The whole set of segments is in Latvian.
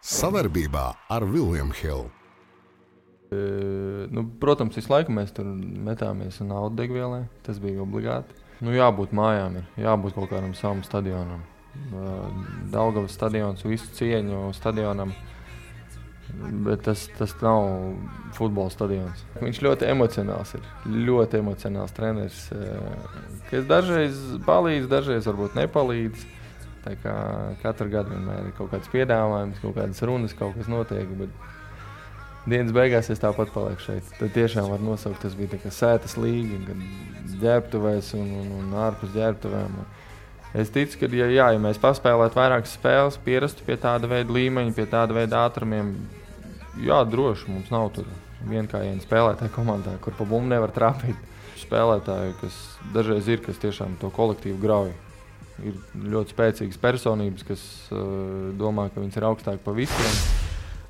Sadarbībā ar William Hill. Protams, visu laiku mēs tur metāmies un naudu degvielē. Tas bija obligāti. Jābūt mājām, jābūt kaut kādam savam stadionam. Daugavas stadions, visu cieņu stadionam. Bet tas nav futbola stadions. Viņš ļoti emocionāls ir. Ļoti emocionāls treneris. Kas dažreiz palīdz, dažreiz varbūt nepalīdz. Tā kā katru gadu vienmēr ir kaut kāds piedāvājums, kaut kādas runas, kaut kas notiek. Bet dienas beigās es tāpat palieku šeit. Tad tiešām var nosaukt, tas bija tā kā sētas līga, kad ģērbtuvēs un ārpus ģērbtuvēm. Es ticu, ka ja mēs paspēlētu vairākas spēles, pierastu pie tāda veida līmeņa, pie tāda veida ātrumiem, droši mums nav tur vienkājienu spēlētāju komandā, kur pa bumbu nevar trāpīt. Spēlētāji, kas dažreiz ir, kas tiešām to kolektīvu grauj. Ir ļoti spēcīgas personības, kas domā, ka viņas ir augstāk pa visiem.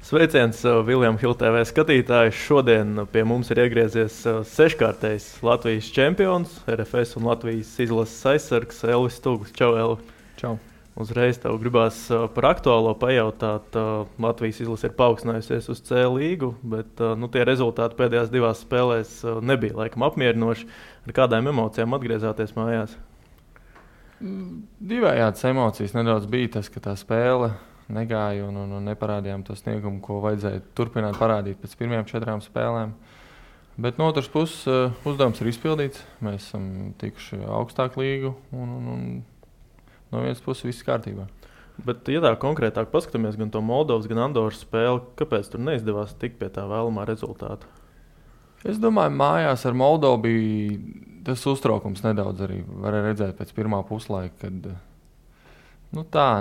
Sveiciens William Hill TV skatītājs. Šodien pie mums ir iegriezies seškārtējs Latvijas čempions, RFS un Latvijas izlases aizsargs Elvis Stūgls. Čau, Elvi! Čau! Uzreiz tev gribās par aktuālo pajautāt. Latvijas izlase ir paaugstinājusies uz C līgu, bet tie rezultāti pēdējās divās spēlēs nebija laikam apmierinoši. Ar kādām emocijām atgriezāties mājās? Divējādas emocijas nedaudz bija tas, ka tā spēle negāja un neparādījām to sniegumu, ko vajadzēja turpināt parādīt pēc pirmajām 4 spēlēm. Bet no otras puses uzdevums ir izpildīts. Mēs esam tikuši augstāk līgu un no vienas puses viss kārtībā. Bet, ja tā konkrētāk paskatāmies gan to Moldovas, gan Andoras spēli, kāpēc tur neizdevās tikt pie tā vēlamā rezultāta? Es domāju, mājās ar Moldovu bija tas uztraukums nedaudz arī. Varēja redzēt pēc pirmā puslaika, kad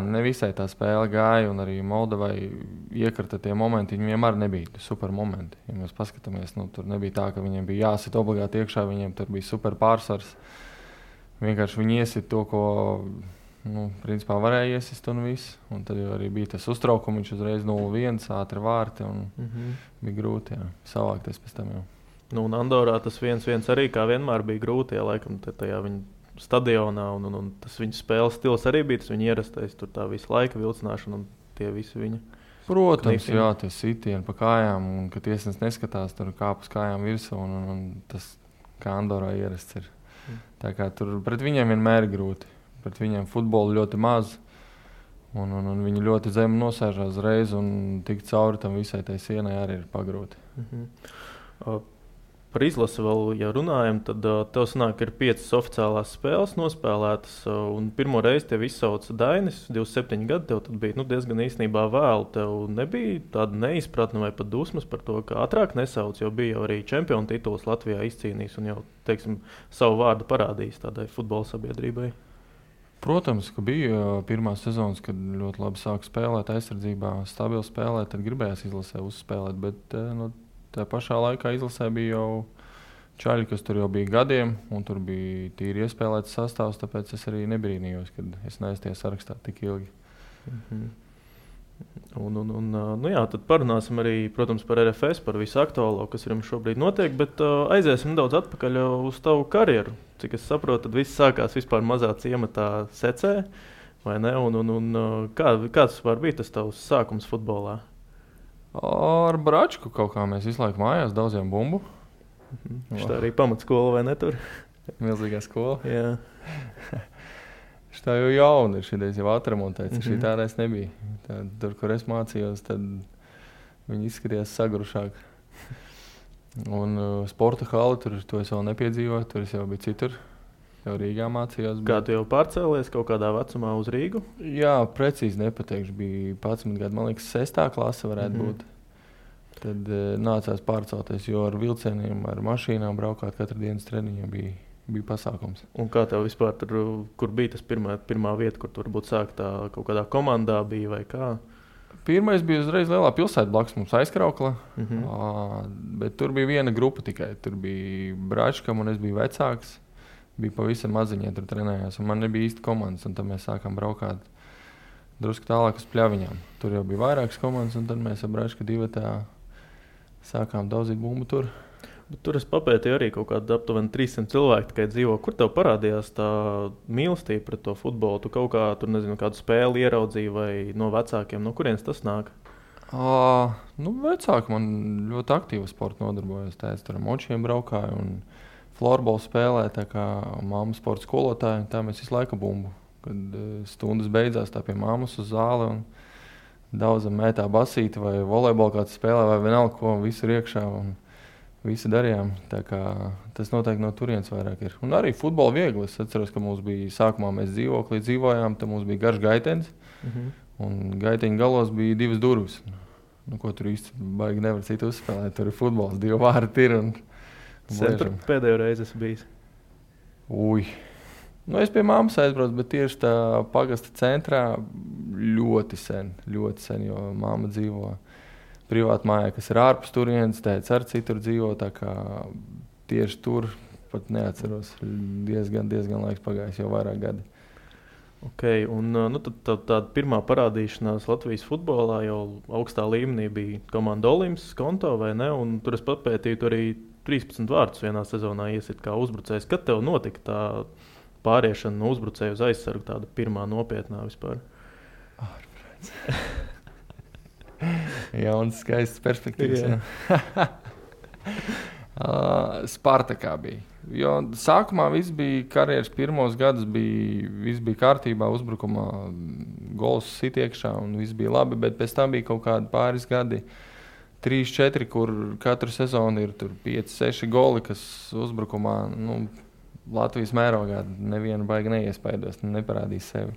nevisai tā spēle gāja un arī Moldovai iekrita tie momenti. Viņiem vienmēr nebija super momenti. Ja mēs paskatāmies, tur nebija tā, ka viņiem bija jāsit obligāti iekšā, viņiem tur bija super pārsvars. Vienkārši viņi iesit to, ko principā varēja iesist un viss. Un tad arī bija tas uztraukums, viņš uzreiz 0-1, ātri vārti un bija grūti savākties pēc tam jau. Un Andorā tas 1-1 arī kā vienmēr bija grūti, laikam tajā viņa stadionā un tas viņa spēles stils arī bija, tas viņa ierastais, tur tā visu laika vilcināšana un tie visi viņa. Protams, tie sitieni pa kājām un ka tiesnes neskatās, tur kāp uz kājām virsū un tas kā Andorā ierasts ir. Tā kā tur pret viņiem vienmēr ir grūti. Pret viņiem futbolu ļoti maz un viņi ļoti zemi nosēžās reiz un tik cauri tam visai tai sienai arī ir pagrūti. Par izlasi vēl, ja runājam, tad tev sanāk, ka ir 5 oficiālās spēles nospēlētas un pirmo reizi tev izsauca Dainis, 27 gadi, tev tad bija diezgan īstenībā vēlu. Tev nebija tāda neizpratne vai pat dusmas par to, ka ātrāk nesauc, jo bija jau arī čempionu tituls Latvijā izcīnījis un jau, savu vārdu parādījis tādai futbola sabiedrībai. Protams, ka bija pirmās sezonas, kad ļoti labi sāka spēlēt aizsardzībā, stabili spēlēt, tad gribējās izlasē uzspēlēt, bet tā pašā laikā izlasē bija jau čaļi, kas tur jau bija gadiem, un tur bija tīri iespēlēts sastāvs, tāpēc es arī nebrīnījos, kad es neesmu sarakstā tik ilgi. Tad parunāsim arī, protams, par RFS, par visu aktuālo, kas ir šobrīd notiek, bet aiziesim daudz atpakaļ uz tavu karjeru. Cik es saprotu, tad viss sākās vispār mazā ciematā Secē, vai ne? Kāds var bija tas tavs sākums futbolā? Ar Bračku kaut kā mēs visu laiku mājās daudziem bumbu. Šitā arī pamatskola, vai ne tur? Milzīgā skola. Jā. Šitā jau jauna ir, šitais jau atremontēts, šitādais nebija. Tur, kur es mācījos, tad viņi izskatījās sagrušāk. Un sporta hali, to es vēl nepiedzīvoju, tur es jau biju citur. Jau Rīgā mācījos. Kā tu jau pārcēlies kaut kādā vecumā uz Rīgu? Jā, precīzi nepateikšu. Bija 11 gadu, man liekas, 6. klase varētu būt. Tad nācās pārcelties, jo ar vilcieniem, ar mašīnām braukāt katru dienas treniņu bija pasākums. Un kā tev vispār tur, kur bija tas pirmā vieta, kur tu varbūt sākt kaut kādā komandā bija vai kā? Pirmais bija uzreiz lielā pilsēta blakus mums Aizkraukla, bet tur bija viena grupa tikai. Tur bija Bračkam un es biju vecāks. Bija pavisam maziņie, tur trenējās, un man nebija īsti komandas, un tad mēs sākām braukāt drusku tālāk uz Pļaviņām. Tur jau bija vairākas komandas, un tad mēs ar Bračku divatā sākām daudzīt bumbu tur. Bet tur es papētīju arī kaut kādu aptuveni 300 cilvēku tikai dzīvo. Kur tev parādījās tā mīlestība pret to futbolu? Tu kaut kā, tur nezinu, kādu spēli ieraudzīji vai no vecākiem, no kurienes tas nāk? Vecāki man ļoti aktīvi sporta nodarbojās. Tēvs tur ar močiem braukāja un florbolu spēlēja, tā kā mamma sporta skolotāja. Tā mēs visu laiku bumbu. Kad stundas beidzās, tā pie mammas uz zāli un daudzam mētā basīti vai volejbolu kāds spēlē vai vienalga, ko visu ir iekšā un visi darījām. Tā kā tas noteikti no turienes vairāk ir. Un arī futbolu viegli. Es atceros, ka mums bija sākumā mēs dzīvoklī dzīvojām, tad mums bija garš gaitenis. Un gaiteņa galos bija 2 durvis. Ko tur īsti baigi nevar citu uzspēlēt. Tur ir futbols, 2 vārti ir. Centru pēdējo reizi esmu bijis. Es pie mammas aizbraucu, bet tieši tā pagasta centrā ļoti sen, jo mamma dzīvo privāti mājā, kas ir ārpus turienes, tēvs ar citur dzīvo, tā kā tieši tur pat neatceros. Diezgan laiks pagājis, jau vairāk gadi. Okay, un tad tāda pirmā parādīšanās Latvijas futbolā jau augstā līmenī bija komanda Olimps, Skonto vai ne? Un tur es papētīju, tur arī 13 vārdus vienā sezonā iesit kā uzbrucējs. Kad tev notika tā pāriešana no uzbrucēja uz aizsargu, tāda pirmā nopietnā vispār? Jauns, skaists perspektīvas. Spartakā bija. Jo sākumā viss bija karjeras pirmos gadus, viss bija kārtībā, uzbrukumā gols sit iekšā un viss bija labi, bet pēc tam bija kaut kādi pāris gadi, 3-4, kur katru sezonu ir 5-6 goli, kas uzbrukumā Latvijas mērogā nevienu baigi neiespaidos, neparādīs sevi.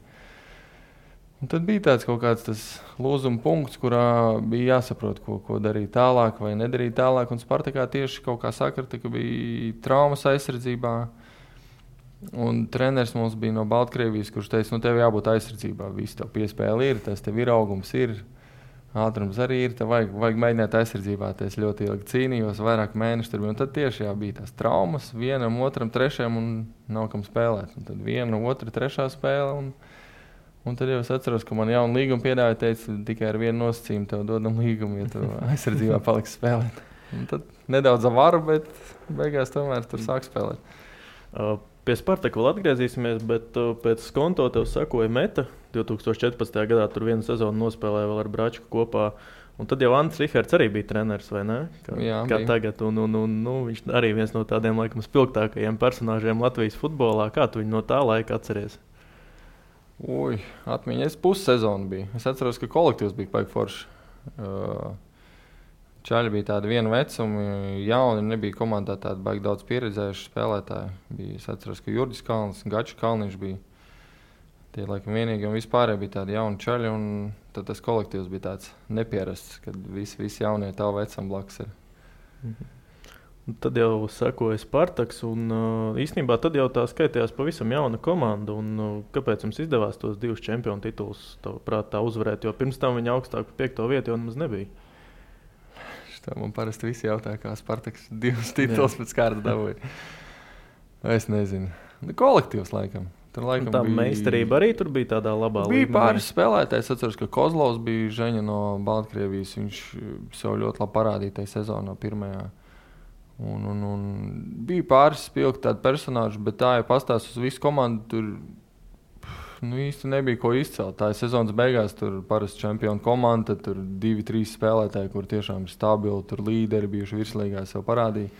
Un tad bija tāds kaut kāds tas lūzuma punkts, kurā bija jāsaprot, ko darīt tālāk vai nedarīt tālāk. Un Spartakā tieši kaut kā sakrita, ka bija traumas aizsardzībā. Un treneris mums bija no Baltkrievijas, kurš teica, tev jābūt aizsardzībā. Viss tev piespēle ir, tas tev ir augums ir, ātrums arī ir, tev vajag mēģināt aizsardzībā. Es ļoti ilgi cīnījos, vairāk mēneši tur bija. Un tad tieši bija tās traumas, vienam, otram, trešajam un nav kam spēlēt. Un tad viena, otra, trešā spēle. Un tad jau es atceros, ka man jaunu līgumu piedāvāja, teica, tikai ar vienu nosacījumu tev dodam līgumu, ja tu aizsardzībā paliksi spēlēt. Un tad nedaudz avaru, bet beigās tomēr tur sāk spēlēt. Pie Spartaka vēl atgriezīsimies, bet pēc Skonto tev sakoja Meta. 2014. gadā tur vienu sezonu nospēlēja vēl ar Bračku kopā. Un tad jau Andris Rihards arī bija treneris, vai ne? Kā tagad. Viņš arī viens no tādiem laikam spilgtākajiem personāžiem Latvijas futbolā. Kā tu viņu no tā laika atceries? Atmiņa. Es pussezonu biju. Es atceros, ka kolektīvs bija paigi forši. Čaļi bija tādi viena vecumi, jauni, nebija komandā tādi baigi daudz pieredzējuši spēlētāji. Es atceros, ka Jurģis Kalns, Gačs Kalniņš bija tie laikam vienīgi, un vispārēji bija tādi jauni čaļi, un tad tas kolektīvs bija tāds nepierasts, kad visi jaunie tavu vecam blakus ir. Tad jau sakoja Spartaks, un īstenībā tad jau tā skaitījās pavisam jauna komanda. Kāpēc jums izdevās tos 2 čempionu titulus tā uzvarēt? Jo pirms tam viņa augstāk par 5. vietu jau nemaz nebija. Man parasti visi jautā, kā Spartaks 2 titulus pēc kārtas dabūja. Es nezinu. Kolektīvs laikam. Tur laikam tā meistarība arī tur bija tādā labā līmenī. Bija pāris spēlētājs. Atceros, ka Kozlovs bija Žeņa no Baltkrievijas. Viņš sev ļoti labi parādīja tajā sezonā pirmajā. Un bija pāris spilgti tādi personāži, bet tā jau pastāst uz visu komandu, tur īsti nebija ko izcelt. Tā ir sezonas beigās, tur parasti čempionu komanda, tur 2-3 spēlētāji, kur tiešām ir stabili, tur līderi bijuši virslīgā sev parādīja.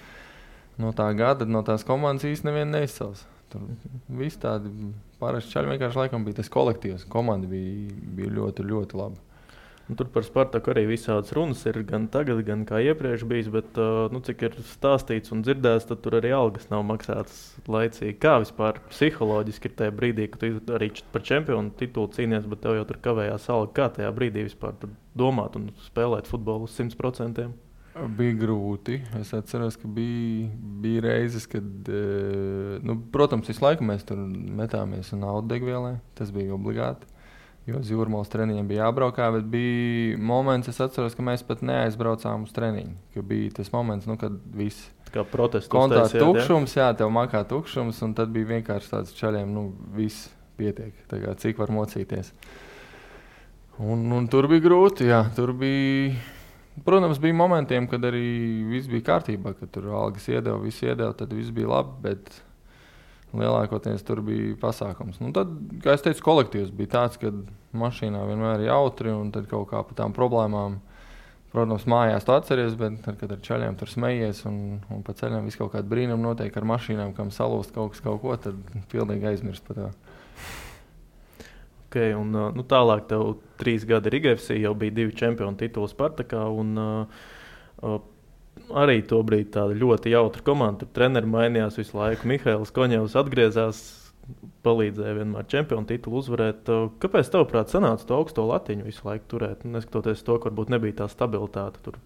No tā gada, no tās komandas īsti nevienu neizcels. Tur visi tādi parasti čaļi vienkārši laikam bija tas kolektīvs. Komanda bija ļoti, ļoti laba. Tur par Spartaku arī visādas runas ir gan tagad, gan kā iepriekš bijis, bet cik ir stāstīts un dzirdēts, tad tur arī algas nav maksātas laicīgi. Kā vispār psiholoģiski ir tajā brīdī, kad tu arī par čempionu titulu cīnies, bet tev jau tur kavējās alga. Kā tajā brīdī vispār domāt un spēlēt futbolu uz 100%? Bija grūti. Es atceros, ka bija reizes, kad, protams, visu laiku mēs tur metāmies un audegvielē. Tas bija obligāti. Jo uz Jūrmalas treniņiem bija jābraukā, bet bija moments, es atceros, ka mēs pat neaizbraucām uz treniņu. Ka bija tas moments, kad viss kontā tukšums, tev makā tukšums, un tad bija vienkārši tāds čaļiem, viss pietiek, tā kā cik var mocīties. Un tur bija grūti, tur bija, protams, bija momentiem, kad arī viss bija kārtībā, kad tur algas iedeva, tad viss bija labi, bet lielākoties tur bija pasākums. Tad, kā es teicu, kolektīvs bija tāds, ka mašīnā vienmēr ir jautri un tad kaut kā par tām problēmām Protams, mājās tu atceries, bet tad, kad ar čaļiem tur smejies un pa ceļam viss kaut kāda brīnuma notiek ar mašīnām, kam salūst kaut ko, tad pilnīgi aizmirst par to. Okay, un, tālāk tev 3 gadi Riga-FC, jau bija 2 čempionu tituli Spartakā, un arī tobrīd tāda ļoti jautra komanda. Tur treneri mainījās visu laiku. Mihails Koņevs atgriezās, palīdzēja vienmēr čempionu titulu uzvarēt. Kāpēc tavuprāt sanāca to augsto latiņu visu laiku turēt? Neskatoties to, ka varbūt nebija tā stabilitāte tur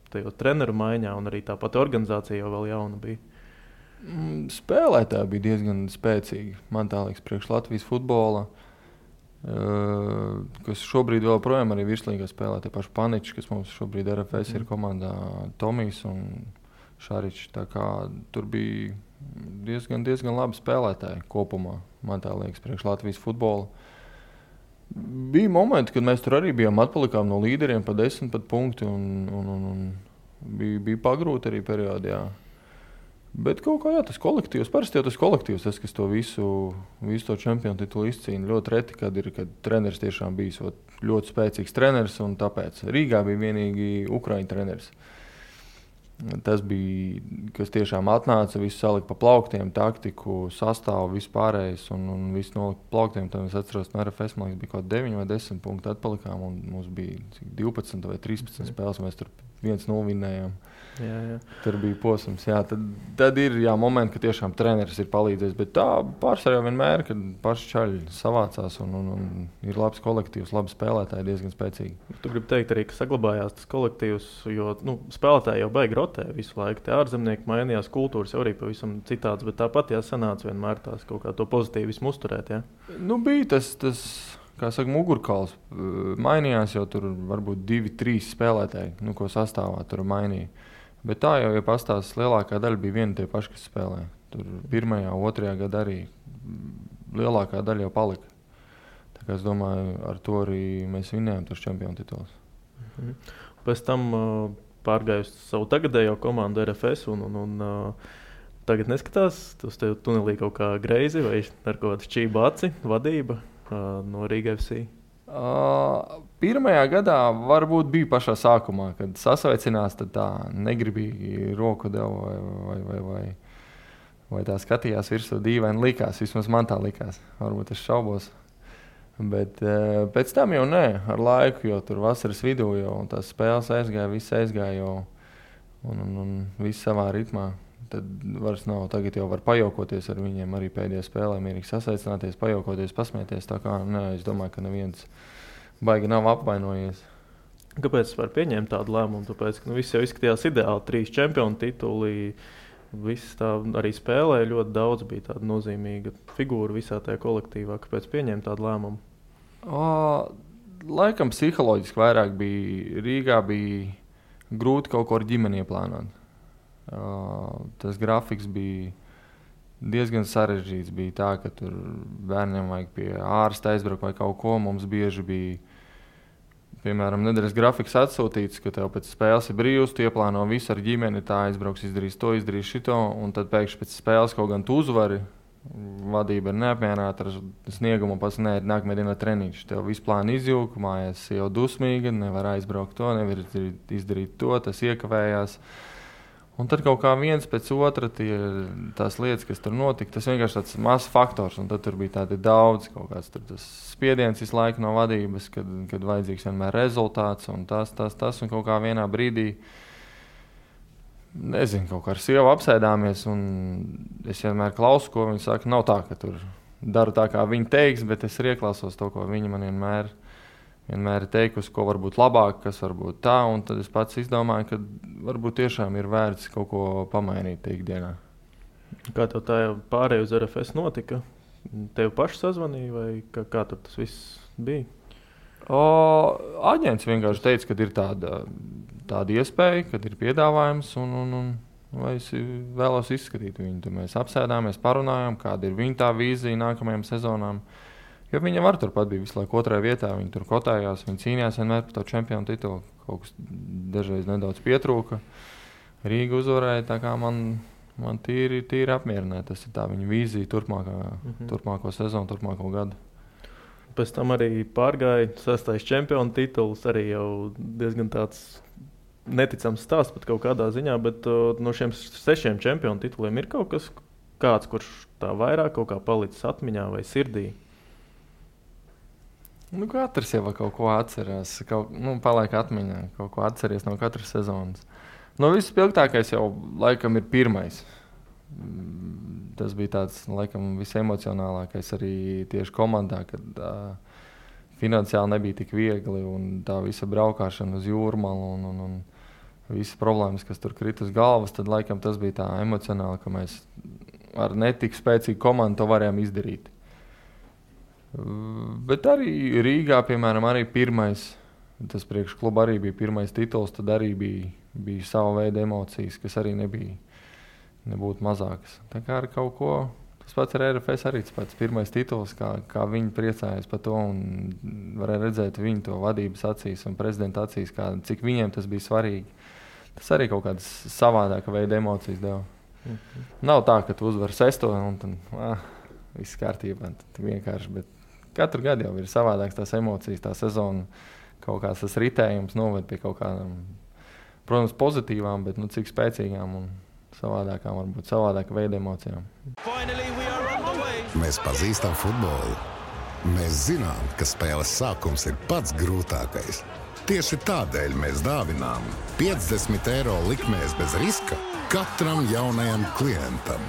tajos treneru maiņā, un arī tā pati organizācija jau vēl jauna bija. Spēlētāji bija diezgan spēcīgi. Man tā liekas, priekš Latvijas futbola, kas šobrīd vēl projām arī virslīgā spēlē. Tie paši Paniči, kas mums šobrīd RFS ir komandā, Tomijs un Šaričs. Tā kā tur bija diezgan labi spēlētāji kopumā, man tā liekas, priekš Latvijas futbola. Bija momenti, kad mēs tur arī bijām atpalikām no līderiem pa 10 punkti un bija pagrūti arī periodi, jā. Bet kaut kā, jā, tas kolektīvs, parasti jau tas kolektīvs, kas to visu to čempionu titulu izcīna. Ļoti reti, kad treneris tiešām bijis ļoti spēcīgs treneris, un tāpēc Rīgā bija vienīgi Ukraiņu treneris. Tas bija, kas tiešām atnāca, visu salika pa plauktiem, taktiku, sastāvu, vispārējais, un visu nolika pa plauktiem. Tad es atceros, no RFS, man liekas, bija kaut 9 vai 10 punkti atpalikām, un mums bija 12 vai 13 spēles, mēs tur 1-0 vinnējām. Jā. Tur bija posms. Jā, tad ir momenti, ka tiešām treneris ir palīdzējis. Bet tā pārsvarā vienmēr, kad paši čaļi savācās un ir labs kolektīvs, labi spēlētāji, diezgan spēcīgi. Tu gribi teikt arī, ka saglabājās tas kolektīvs, jo spēlētāji jau baigi rotē visu laiku. Tie ārzemnieki mainījās, kultūras jau arī pavisam citāds, bet tāpat sanāca vienmēr tās kaut kā to pozitīvismu uzturēt. Jā? Bija tas kā saka, mugurkauls. Mainījās jau tur varbūt 2-3 spēlētāji, ko sastāvā tur mainīja. Bet tā jau pastāstās, lielākā daļa bija viena tie paši, kas spēlēja. Tur 1. un 2. gadā arī lielākā daļa jau palika. Tā kā es domāju, ar to arī mēs vinnējām tos čempionu titulus. Pēc tam pārgāju savu tagadējo komandu RFS un tagad neskatās uz tevi tunelī kaut kā greizi vai ar kaut kādu šķību aci vadība no Riga-FC? Pirmajā gadā varbūt bija pašā sākumā, kad sasveicinās, tad tā negribīgi roku deva vai tā skatījās virsū dīvaini likās. Vismaz man tā likās. Varbūt es šaubos. Bet pēc tam jau nē, ar laiku, jo tur vasaras vidū jau tās spēles aizgāja, viss aizgāja jau un viss savā ritmā. Tad vairs nav, tagad jau var pajaukoties ar viņiem arī pēdējā spēlē, mierīgi sasaicināties, pajaukoties, pasmieties. Tā kā, es domāju, ka neviens baigi nav apvainojies. Kāpēc es varu pieņemt tādu lēmumu? Tāpēc, ka viss jau izskatījās ideāli, 3 čempionu tituli, viss tā arī spēlēja ļoti daudz, bija tāda nozīmīga figūra visā tajā kolektīvā. Kāpēc pieņemt tādu lēmumu? Laikam psiholoģiski vairāk bija, Rīgā bija grūti kaut ko ar ģimeni ieplānot. Tas grafiks bija diezgan sarežģīts. Bija tā, ka tur bērniem vajag pie ārsta aizbraukt vai kaut ko. Mums bieži bija, piemēram, nedēļas grafiks atsūtīts, ka tev pēc spēles ir brīvs, tu ieplāno visu ar ģimeni, tā aizbrauks, izdarīs to, izdarīs šito, un tad pēkšņi pēc spēles kaut gan tu uzvari, vadība ir neapmierināta ar sniegumu, pats nākamajā dienā treniņš. Tev visu plānu izjūka, mājās jau dusmīga, nevar aizbraukt to, nevar izdarīt to, tas iekavējās. Un tad kaut kā viens pēc otra tās lietas, kas tur notika, tas vienkārši tāds mazs faktors. Un tad tur bija tādi daudz, kaut kāds tur tas spiediens visu laiku no vadības, kad vajadzīgs vienmēr rezultāts un tas. Un kaut kā vienā brīdī, nezinu, kaut kā ar sievu apsēdāmies un es vienmēr klausu, ko viņi saka. Nav tā, ka tur daru tā, kā viņi teiks, bet es arī ieklausos to, ko viņi man vienmēr ir teikusi, ko var būt labāk, kas var būt tā, un tad es pats izdomāju, ka varbūt tiešām ir vērts kaut ko pamainīt ikdienā. Kā tev tā pārēj uz RFS notika? Tev paši sazvanīja vai kā tur tas viss bija? Aģents vienkārši teica, ka ir tāda iespēja, kad ir piedāvājums, un vai es vēlos izskatīt viņu. Tad mēs apsēdāmies, parunājām, kāda ir viņa tā vīzija nākamajām sezonām. Jo viņa var turpat bija visu laiku 2. vietā, viņa tur kotājās, viņa cīnījās vienmēr par to čempionu titulu. Kaut kas dažreiz nedaudz pietrūka. Rīga uzvarēja, tā kā man tīri apmierināja. Tas ir tā viņa vīzija turpmāko sezonu, turpmāko gadu. Pēc tam arī pārgāja 6. čempionu tituls, arī jau diezgan tāds neticams stāsts pat kaut kādā ziņā, bet no šiem 6 čempionu tituliem ir kaut kas kāds, kurš tā vairāk kaut kā palicis atmiņā vai sirdī? Nu, katrs jau kaut ko atcerās, paliek atmiņā, kaut ko atceries no katras sezonas. Vispilgtākais jau laikam ir pirmais. Tas bija tāds, laikam, visemocionālākais arī tieši komandā, kad finansiāli nebija tik viegli un tā visa braukšana uz Jūrmalu un visas problēmas, kas tur krita uz galvas, tad laikam tas bija tā emocionāli, ka mēs ar netik spēcīgu komandu to varējām izdarīt. Bet arī Rīgā, piemēram, arī pirmais, tas priekš kluba arī bija pirmais tituls, tad arī bija sava veida emocijas, kas arī nebūtu mazākas. Tā kā ar kaut ko, tas pats ar RFS arī tas pats pirmais tituls, kā viņi priecājās par to un varēja redzēt viņu to vadības acīs un prezidenta acīs, cik viņiem tas bija svarīgi. Tas arī kaut kādas savādāka veida emocijas deva. Nav tā, ka tu uzvar 6 un tad viss kārtībā, tad vienkārši, bet katru gadu jau ir savādāks tās emocijas, tā sezona, kaut kāds tas ritējums noved pie kaut kādām, protams, pozitīvām, bet cik spēcīgām un savādākām, varbūt savādāka veida emocijām. Mēs pazīstam futbolu. Mēs zinām, ka spēles sākums ir pats grūtākais. Tieši tādēļ mēs dāvinām 50 eiro likmēs bez riska katram jaunajam klientam.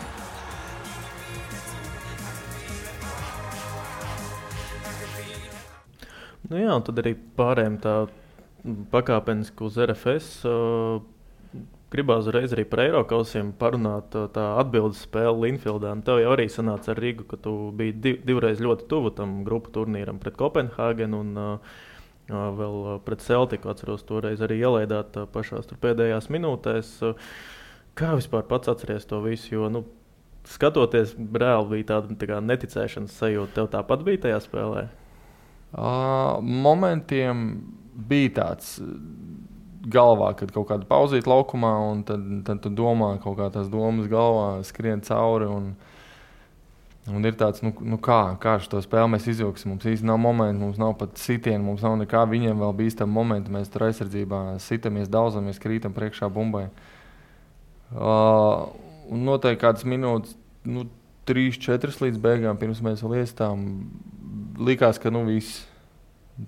Jā, un tad arī pārējiem tā pakāpeniski uz RFS. Gribās uzreiz arī par Eirokausiem parunāt tā atbildes spēle Linfieldā. Tev jau arī sanāca ar Rīgu, ka tu biji divreiz ļoti tuvu tam grupu turnīram pret Kopenhāgenu un vēl pret Celtiku. Atceros, toreiz arī ielaidāt pašās tur pēdējās minūtēs. Kā vispār pats atceries to visu? Jo, skatoties, reāli bija tāda tā kā neticēšanas sajūta. Tev tāpat bija tajā spēlē? Momentiem bija tāds galvā, kad kaut kāda pauzīt laukumā, un tad tu domā, kaut kā tās domas galvā skrien cauri, un ir tāds, kā šo spēli mēs izvilksim. Mums īsti nav momenti, mums nav pat sitieni, mums nav nekā, viņiem vēl bīstam momenti, mēs tur aizsardzībā sitamies, daudzamies, krītam priekšā bumbai. Un noteikti kādas minūtes, 3-4 līdz beigām, pirms mēs vēl iestām, likās, ka viss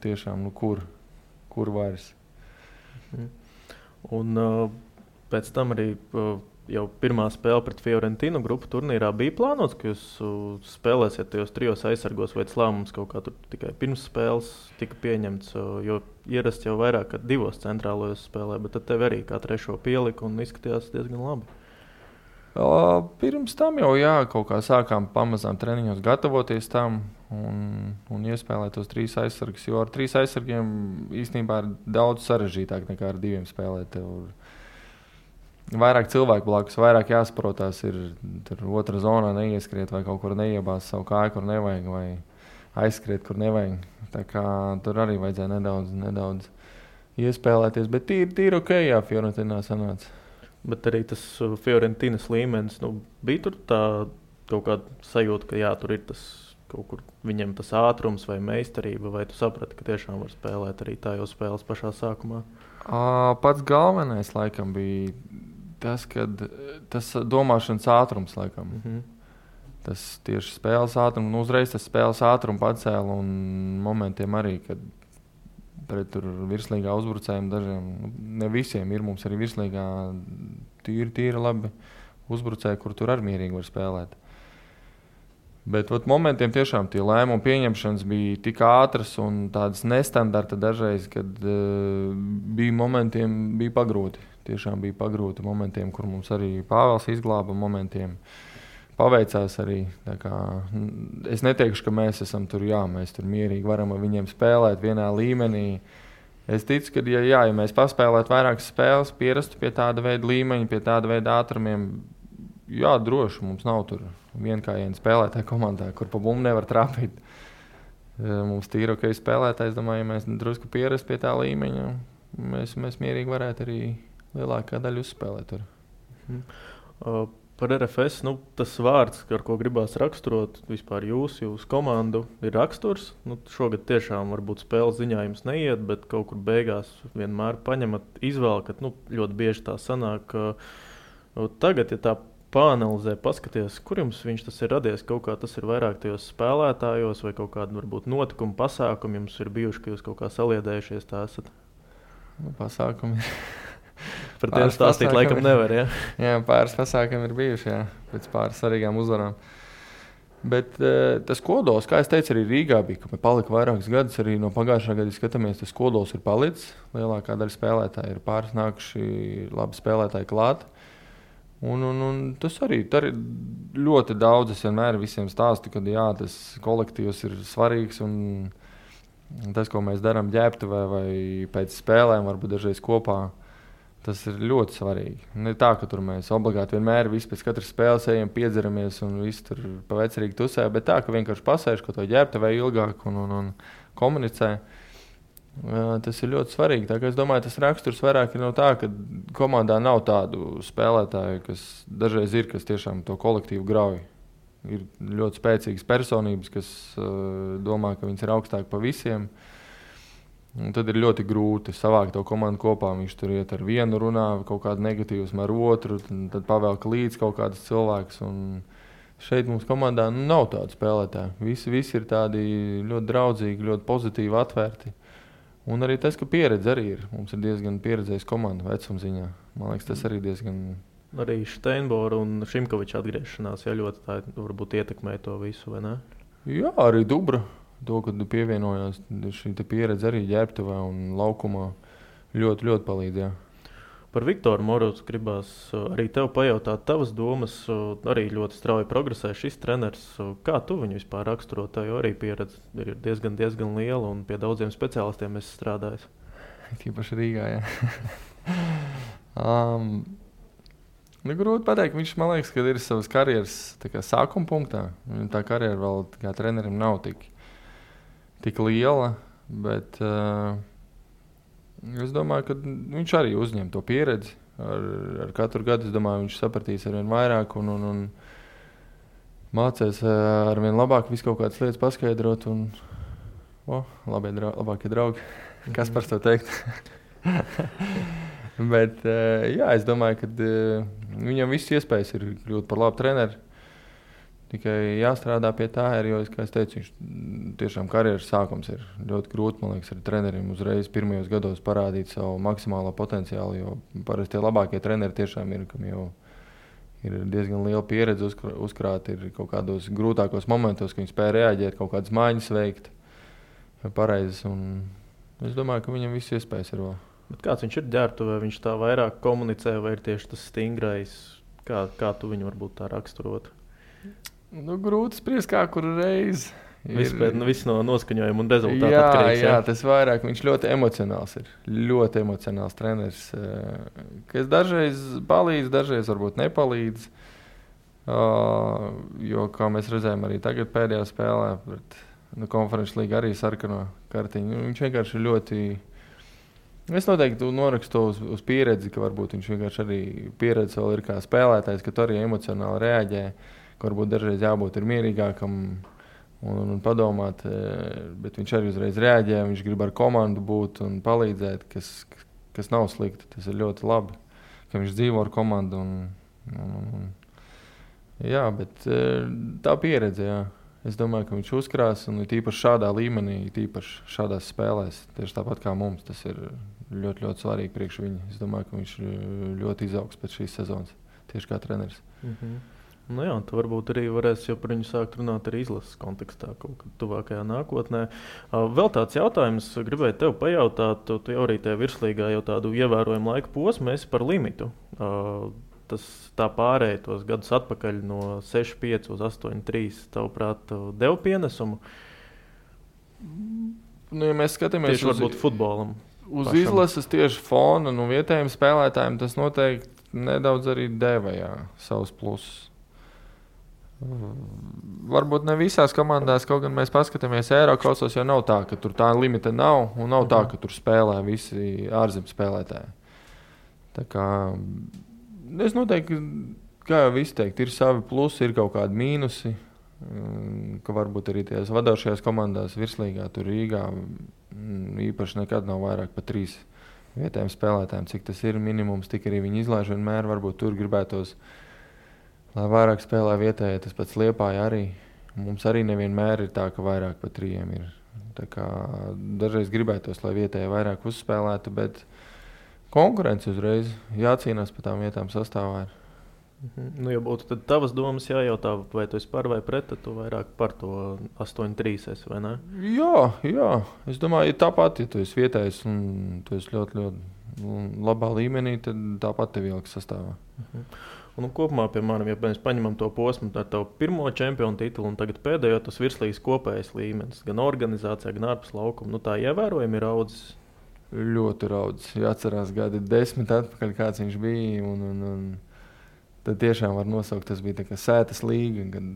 tiešām, kur vairs. Un pēc tam arī jau pirmā spēle pret Fiorentinu grupu turnīrā bija plānots, ka jūs spēlēsiet tajos 3 aizsargos, vai tas lēmums kaut kā tur tikai pirms spēles tika pieņemts, jo ierasts jau vairāk kā 2 centrālajos spēlē, bet tad tev arī kā 3 pielika un izskatījās diezgan labi. Pirms tam jau kaut kā sākām pamazām treniņos gatavoties tam un iespēlēt tos 3 aizsargus, jo ar 3 aizsargiem īstenībā ir daudz sarežģītāk nekā ar 2 spēlēt. Vairāk cilvēku blakus, vairāk jāsaprotās, ir tur otrā zonā neieskriet vai kaut kur neiebās savu kāju, kur nevajag, vai aizskriet, kur nevajag. Tā kā tur arī vajadzēja nedaudz iespēlēties, bet tīri ok, jā, Fiorentinā sanāca. Bet arī tas Fiorentinas līmenis, bija tur tā kaut kāda sajūta, ka tur ir tas kaut kur viņam tas ātrums vai meistarība, vai tu saprati, ka tiešām var spēlēt arī tā jau spēles pašā sākumā? Pats galvenais laikam bija tas domāšanas ātrums laikam. Tas tieši spēles ātrums, uzreiz tas spēles ātrumu pacēla un momentiem arī, kad pret tur virslīgā uzbrucējiem dažiem, ne visiem ir, mums arī virslīgā tīri labi uzbrucēji, kur tur arī mierīgi var spēlēt. Bet momentiem tiešām tie lēmumu pieņemšanas bija tik ātras un tādas nestandarta dažreiz, kad bija momentiem bija pagrūti. Tiešām bija pagrūti momentiem, kur mums arī Pāvels izglāba, momentiem paveicās arī. Tā kā, es neteikšu, ka mēs esam tur, mēs tur mierīgi varam ar viņiem spēlēt vienā līmenī. Es ticu, ka ja mēs paspēlētu vairākas spēles, pierastu pie tāda veida līmeņa, pie tāda veida ātrumiem, droši mums nav tur vienkājiena spēlētāja komandā, kur pa bumbu nevar trāpīt. Mums tīri ok spēlētājs, domāju, ja mēs drusku pierastu pie tā līmeņa, mēs mierīgi varētu arī lielākā daļa uzspēlēt tur. Par RFS, tas vārds, ar ko gribās raksturot vispār jūsu komandu, ir raksturs. Šogad tiešām varbūt spēles ziņā jums neiet, bet kaut kur beigās vienmēr paņemat, izvēlkat. Ļoti bieži tā sanāk. Tagad, ja tā pāanalizē, paskaties, kur jums tas ir radies, kaut kā tas ir vairāk tajos spēlētājos vai kaut kādi varbūt notikumi, pasākumi jums ir bijuši, ka jūs kaut kā saliedējušies tā esat? Pasākumi Par tiem stāstīt laikam nevar, ja? Jā, pāris pasākumi ir bijuši, jā, pēc pāris svarīgām uzvarām. Bet tas kodols, kā es teicu, arī Rīgā bija, ka palika vairākus gadus, arī no pagājušā gada skatāmies, tas kodols ir palicis. Lielākā daļa spēlētāji ir pāris nākuši labi spēlētāji klāt. Un tas arī ļoti daudz, es vienmēr visiem stāstu, ka jā, tas kolektīvs ir svarīgs un tas, ko mēs darām ģērbtuvē vai pēc spēlēm, varbūt dažreiz kopā, tas ir ļoti svarīgi. Ne tā, ka tur mēs obligāti vienmēr visi pēc katras spēles ejam, piedzeramies un visi tur pa vecerīgi tusē, bet tā, ka vienkārši pasēž, ka to ģērbtuvē ilgāk un komunicē. Tas ir ļoti svarīgi. Tā, es domāju, tas raksturs vairāk ir no tā, ka komandā nav tādu spēlētāju, kas dažreiz ir, kas tiešām to kolektīvu grauj. Ir ļoti spēcīgas personības, kas domā, ka viņas ir augstāk pa visiem. Un tad ir ļoti grūti savākt to komandu kopā. Viņš tur iet ar vienu runā, kaut kādu negatīvusmu ar otru, tad pavelk līdz kaut kādas cilvēks. Un šeit mums komandā nav tādu spēlētāju. Visi ir tādi ļoti draudzīgi, ļoti pozitīvi, atvērti. Un arī tas, ka pieredze arī ir. Mums ir diezgan pieredzējis komanda vecumziņā. Man liekas, tas arī diezgan... Arī Steinbora un Šimkoviča atgriešanās, ja ļoti tā varbūt ietekmē to visu, vai ne? Jā, arī Dubra. To, kad pievienojās šī pieredze arī ģērbtuvē un laukumā, ļoti, ļoti palīdz. Jā. Par Viktoru Morozu gribās arī tev pajautāt tavas domas. Arī ļoti strauji progresē šis treneris. Kā tu viņu vispār raksturot? Tā jau arī pieredze ir diezgan liela un pie daudziem speciālistiem esi strādājis. Tīpaši Rīgā, jā. Grūti pateikt, viņš, man liekas, ka ir savas karjeras sākuma punktā. Tā karjera vēl kā trenerim nav tik liela, bet es domāju, ka viņš arī uzņem to pieredzi. Ar katru gadu, es domāju, viņš sapratīs arvien vairāk un mācēs arvien labāk visu kaut kādas lietas paskaidrot. Labākie draugi, kas par to teikt? Bet jā, es domāju, ka viņam viss iespējas ir kļūt par labu treneri. Tikai jāstrādā pie tā, jo, kā es teicu, viņš tiešām karjeras sākums ir ļoti grūti, man liekas, ar treneriem uzreiz pirmajos gados parādīt savu maksimālo potenciālu, jo parasti tie labākie treneri tiešām ir, kam jau ir diezgan liela pieredze uzkrāt, ir kaut kādos grūtākos momentos, ka viņi spēja reaģēt, kaut kādas maiņas veikt pareizes, un es domāju, ka viņam viss iespējas ir vēl. Bet kāds viņš ir ģērbtuvē, viņš tā vairāk komunicē, vai ir tieši tas stingrais, kā tu viņu varbūt tā raksturot? Grūti spriest, kā kuru reizi. Viss no noskaņojuma un rezultātu atkarīgs. Jā, tas vairāk. Viņš ļoti emocionāls ir. Ļoti emocionāls treneris. Kas dažreiz palīdz, dažreiz varbūt nepalīdz. Jo, kā mēs redzējām arī tagad pēdējā spēlē, konferences līga arī sarkano kartiņu. Viņš vienkārši ir ļoti... Es noteikti norakstu uz pieredzi, ka varbūt viņš vienkārši arī pieredze vēl ir kā spēlētājs, ka tu arī emocionāli reaģē. Varbūt dažreiz jābūt mierīgākam un padomāt, bet viņš arī uzreiz reaģē, viņš grib ar komandu būt un palīdzēt, kas nav slikti. Tas ir ļoti labi, ka viņš dzīvo ar komandu. Jā, bet tā pieredze, jā. Es domāju, ka viņš uzkrās un tīpaši šādā līmenī, tīpaši šādās spēlēs, tieši tāpat kā mums, tas ir ļoti, ļoti svarīgi priekš viņa. Es domāju, ka viņš ļoti izaugs pēc šīs sezonas, tieši kā treneris. Jā, tu varbūt arī varēsi jau par viņu sākt runāt arī izlases kontekstā kaut kad tuvākajā nākotnē. Vēl tāds jautājums, gribēju tev pajautāt, tu jau arī tajā virslīgā jau tādu ievērojumu laika posmu esi par limitu. Tas tā pārēja tos gadus atpakaļ no 6-5 uz 8-3, tavuprāt, dev pienesumu? Ja mēs skatāmies tieši varbūt futbolam. Uz pašam. Izlases tieši fona, vietējiem spēlētājiem tas noteikti nedaudz arī deva, jā, savus plusus. Varbūt ne visās komandās, kaut gan mēs paskatāmies Eirokausos, jo nav tā, ka tur tā limita nav, un nav tā, ka tur spēlē visi ārzemju spēlētāji. Tā kā es noteikti kā jau visi teikt, ir savi plusi, ir kaut kādi mīnusi, ka varbūt arī tajās vadošajās komandās virslīgā, tur Rīgā, īpaši nekad nav vairāk par 3 vietējiem spēlētājiem, cik tas ir minimums, tik arī viņi izlaiž vienmēr, varbūt tur gribētos, lai vairāk spēlē vietējie, tas pats Liepāja arī. Mums arī nevienmēr ir tā, ka vairāk par 3 ir. Tā kā dažreiz gribētos, lai vietējie vairāk uzspēlētu, bet konkurence uzreiz jācīnās par tām vietām sastāvā ir. Nu, ja būtu tad tavas domas jājautā, vai tu esi par vai pret, tad tu vairāk par to 8-3 esi, vai ne? Jā. Es domāju, ja tāpat, ja tu esi vietējis un tu esi ļoti, ļoti labā līmenī, tad tāpat tev ieliks sastāvā. Un kopumā, piemēram, ja mēs paņemam to posmu ar tavu pirmo čempionu titulu un tagad pēdējo, tas virslīgas kopējais līmenis, gan organizācijā, gan ārpus laukuma, nu tā ievērojami ir raudzis. Ļoti raudzis. Jāatcerās gadi 10 atpakaļ, kāds viņš bija. Un tad tiešām var nosaukt, tas bija tā kā sētas līga, gan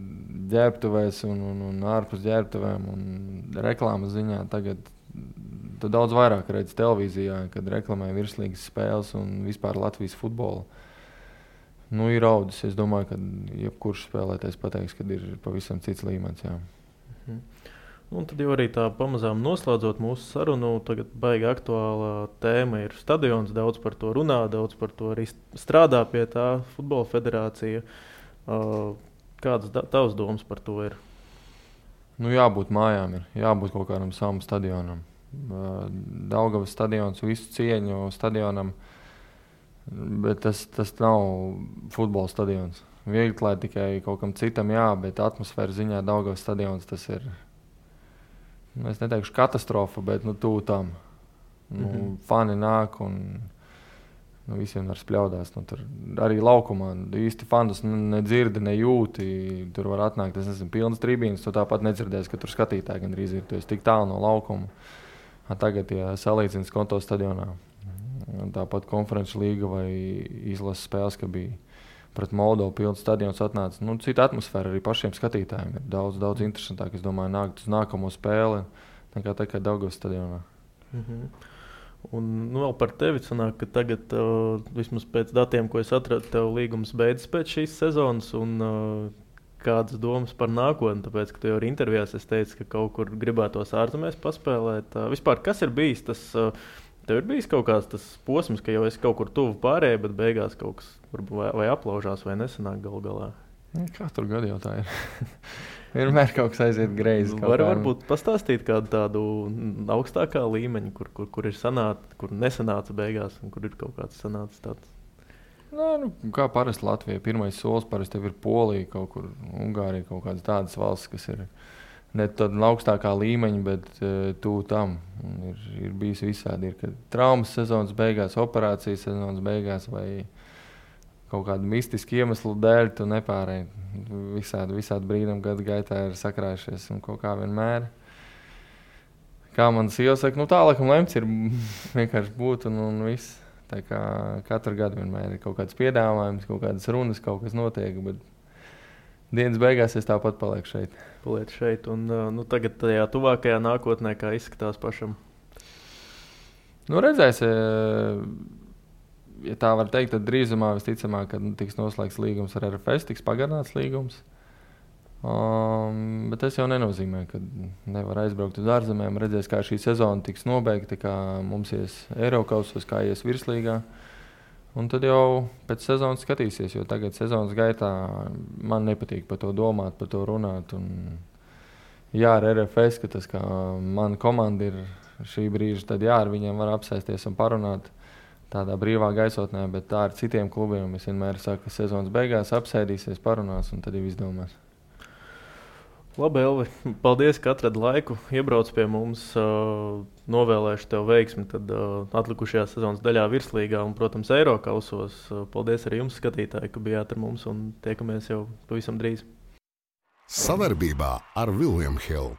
ģērbtuvēs un ārpus ģērbtuvēm un reklāmas ziņā. Tagad tu daudz vairāk redzi televīzijā, kad reklamē virslīgas spēles un vispār Latvijas futbolu. Nu, ir raudzis. Es domāju, ka jebkurš spēlētājs pateiks, ka ir pavisam cits līmenis. Jā. Un tad jau arī tā pamazām noslēdzot mūsu sarunu, tagad baigi aktuāla tēma ir stadions, daudz par to runā, daudz par to arī strādā pie tā futbola federācija. Kādas tavas domas par to ir? Nu, jābūt mājām, jābūt kaut kādam savam stadionam. Daugavas stadions, visu cieņu stadionam, bet tas nav futbola stadions. Viegli klāt tikai kaut kam citam, jā, bet atmosfēra ziņā Daugavas stadions tas ir. Es neteikšu katastrofa, bet tuvu tam. Fani nāk un visiem var spļaudās. Tur arī laukumā īsti fandus nedzirdi, nejūti. Tur var atnākt, es nezinu, pilnas tribīnes. Tu tāpat nedzirdēsi, ka tur skatītāji gandrīz ir. Tu esi tik tālu no laukuma. Tagad, ja salīdzins Konto stadionā, tāpat konferenču līga vai izlases spēles, ka bija pret Moldovu pilns stadions atnāca. Cita atmosfēra arī pašiem skatītājiem ir daudz interesantāk. Es domāju, nākt uz nākamo spēli nekā tā kā Daugavas stadionā. Un vēl par tevi sanāk, ka tagad, vismaz pēc datiem, ko es atradu, tev līgums beidzas pēc šīs sezonas un kādas domas par nākotni, tāpēc, ka tu jau arī intervijās es teicu, ka kaut kur gribētos ārzemēs paspēlēt. Vispār, kas ir bijis tas... Tev ir bijis kaut kāds tas posms, ka jau esi kaut kur tuvu pārējai, bet beigās kaut kas vai aplaužās, vai nesanāk galā? Katru gadu jau tā ir. Vienmēr kaut kas aiziet greizi. Varbūt pastāstīt kādu tādu augstākā līmeņa, kur ir kur nesanāca beigās, un kur ir kaut kāds sanācis tāds? Kā parasti Latvijai. Pirmais solis parasti tev ir Polija, kaut kur Ungārija, kaut kādas tādas valsts, kas ir... Ne tāda augstākā līmeņa, bet tuvu tam. Ir bijis visādi. Ir traumas sezonas beigās, operācijas sezonas beigās vai kaut kādu mistisku iemeslu dēļ tu nepārēji. Visādi brīnumi gadu gaitā ir sakrājušies un kaut kā vienmēr. Kā man sieva saka, tā laikam lemts ir vienkārši būt un viss. Tā kā katru gadu vienmēr ir kaut kāds piedāvājums, kaut kādas runas, kaut kas notiek, bet dienas beigās es tāpat palieku šeit. Un tagad tajā tuvākajā nākotnē, kā izskatās pašam? Redzēs, ja tā var teikt, tad drīzumā visticamāk, kad tiks noslēgts līgums ar RFS, tiks pagarināts līgums. Bet tas jau nenozīmē, ka nevar aizbraukt uz ārzemēm. Redzēs, kā šī sezona tiks nobeigta, kā mums ies Eirokausos, kā ies virslīgā. Un tad jau pēc sezonas skatīsies, jo tagad sezonas gaitā man nepatīk par to domāt, par to runāt. Un jā, ar RFS, ka tas kā mana komanda ir šī brīža, tad jā, ar viņiem var apsēsties un parunāt tādā brīvā gaisotnē, bet tā ar citiem klubiem es vienmēr saku, ka sezonas beigās apsēdīsies, parunās un tad jau izdomās. Labi, Elvi, paldies, ka atradi laiku, iebrauc pie mums, novēlēšu tev veiksmi tad atlikušajā sezonas daļā virslīgā un, protams, Eirokausos. Paldies arī jums, skatītāji, ka bijāt ar mums un tiekamies jau pavisam drīz. Sadarbībā ar William Hill.